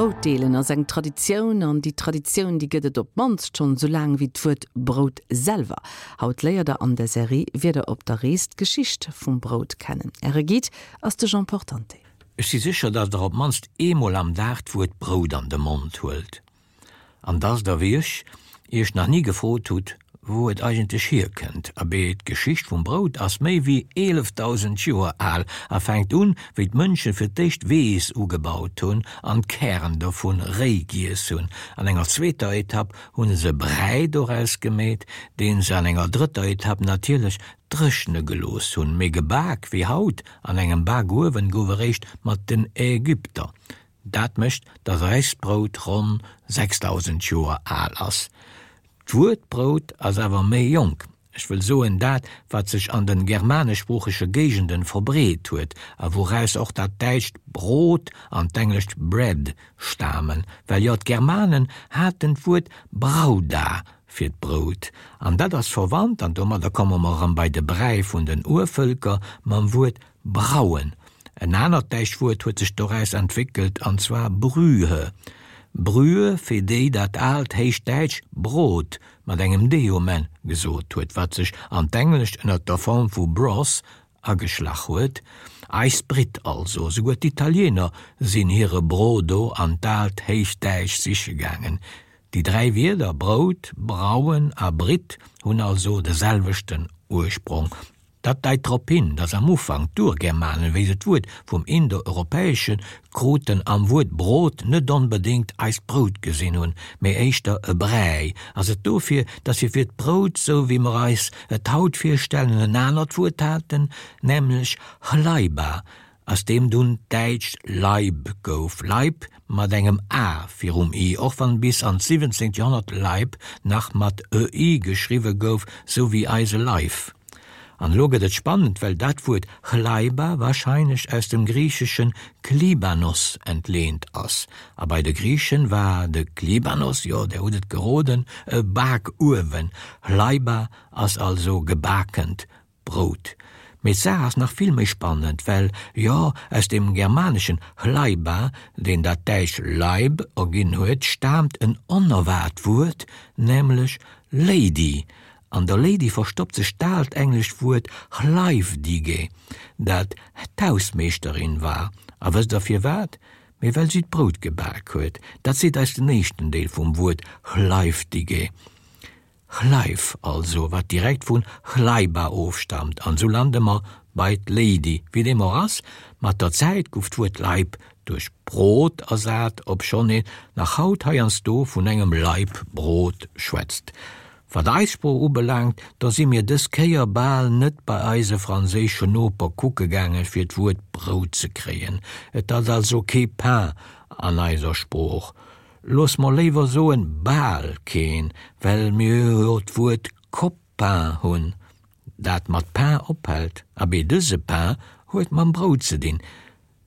Brout deelen ass eng Traditioun an déi Traditioun, déi gëtt et op d'mannst schonn esou laang wéi d'Wuert Brout selwer. Haut léiert der an der Serie Wieder op der Rees d'Geschicht vum Brout kennen. Äre Guide ass de Jean Portante. Ech si sécher, dass der op d'mannst eemol am Dag d'Wuert Brout an de Mond huelt. An dass der, wéi ech, iech nach ni gefrot hutt, wou et eigentlech hierkënnt. Abee, d'Geschicht vum Brout ass méi wéi 11.000 Joer al a fänkt un, wéi d'Mënsche fir d'éischt Weess ugebaut hunn an d'Kären dovun réi giess hunn. An enger zweeter Etapp hunn se Bräi doraus gemeet, deen se an enger drëtter Etapp natierlech dréchne gelooss hunn. Mee gebak wéi haut an engem Bakuewen gouf eréischt mat den Ägypter. Dat mécht, datt eist Brout ronn 6.000 Joer al ass. D'Wuert Brout ass awer méi jonk, ech wëll soen dat, wat sech an den germaneschsproochege Géigenden verbreet huet a wouraus och dat däitscht Brot an d'englescht bread stamen, well jo d'Germanen haten d'Wuert brauda fir d'Brout, an dat ass verwannt, an domadder komme mer erëm bei de Bräi vun den Urvëlker, mam Wuert Brauen. En anert däischt Wuert huet sech doraus entwéckelt, an zwar Brühe. Brühe, fir déi dat aalt Héichdäitsch Brot mat engem d um Enn gesot huet, wat sech an d'Englescht ënner der Form vu broth ageschlach huet. Eis Britt also, souguer d'Italiener sinn hire Brodo an d'aalt Héichdäitsch siche gaangen. Déi 3 Wierder Brout, Brauen a Britt hunn also de selwechten Ursprong. Dat deit drop hin, datt am Ufank d'Urgermanen, wéi se d'Wuert vum Indoeuropäesche kruten, am Wuert Brot net onbedéngt eist Brout gesinn hunn, mee éischter e Bräi. Ass et dofir, datt si fir d'Brout, sou wéi mer eis et haut virstellen, en anert Wuert haten, nämlech Hlaiba, aus deem dunn d'däitscht Laib gouf, Leib mat engem a virum i, och wann bis an d'17. Joerhonnert Leib nach mat e-i geschriwwe gouf, sou wéi eise Leif. An elo gëtt et spannend, well dat Wuert Chlaiba warscheinlech aus dem griicheschen Klibanos entleent ass. A bei de Griichen war de Klibanos, jo, der hutt et geroden, e Bakuewen. Chlaiba ass also gebakent Brout. Mee d'Saach ass nach vill méi spannend, well, jo, aus dem germaneschen hlaiba, deen dat däitsch Laib erginn huet, staamt en onerwaart Wuert, nämlech Lady. An der Lady verstoppt sech d'aalt englescht Wuert hlaifdige, dat d'Hausmeeschterin war. A wësst der firwat? Mee well si d'Brout gebak huet. Dat seet eis den éischten Deel vum Wuert hlaifdige. Chleif also, wat direkt vun Chlaiba ofstamt, an sou lande mer bei d'Lady. Wéi deem och ass, mat der Zäit guff d'Wuert Laib duerch Brot ersat, obschonn een nach haut heiansdo vun engem Laib Brot schwätzt. Wat eis Sprooch ubelaangt, da si mir dës Kéier bal net bei eise franséischen Noper kucke gaange fir d'Wuert Brout ze kréien. Et ass also kee Pain an eiser Sprooch. Looss mer léiwer soen bal keen, well mir jo d'Wuert Copain hunn, dat mat pain ophält. Abee, dëse Pain huet mam Brout ze dinn.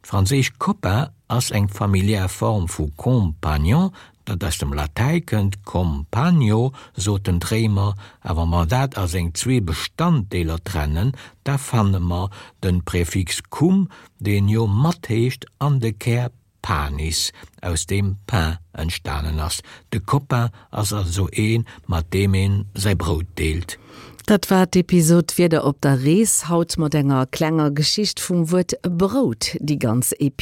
D'franséisch copain ass eng familiär Form vu compagnon, dat aus dem Latäi kënnt, compagno soten d'Réimer, a wa mer dat a seng zwee Bestanddeeler trennen, da fanne mer de Präfix cum, deen jo mat heescht, an de Kär Panis, aus deem Pain entstanen ass. De Copain ass also een, mat deem een säi Brout deelt. Dat war d'Episod Wieder op der Rees, haut mat enger klenger Geschicht vum Wuert Brout. Déi ganz Epi.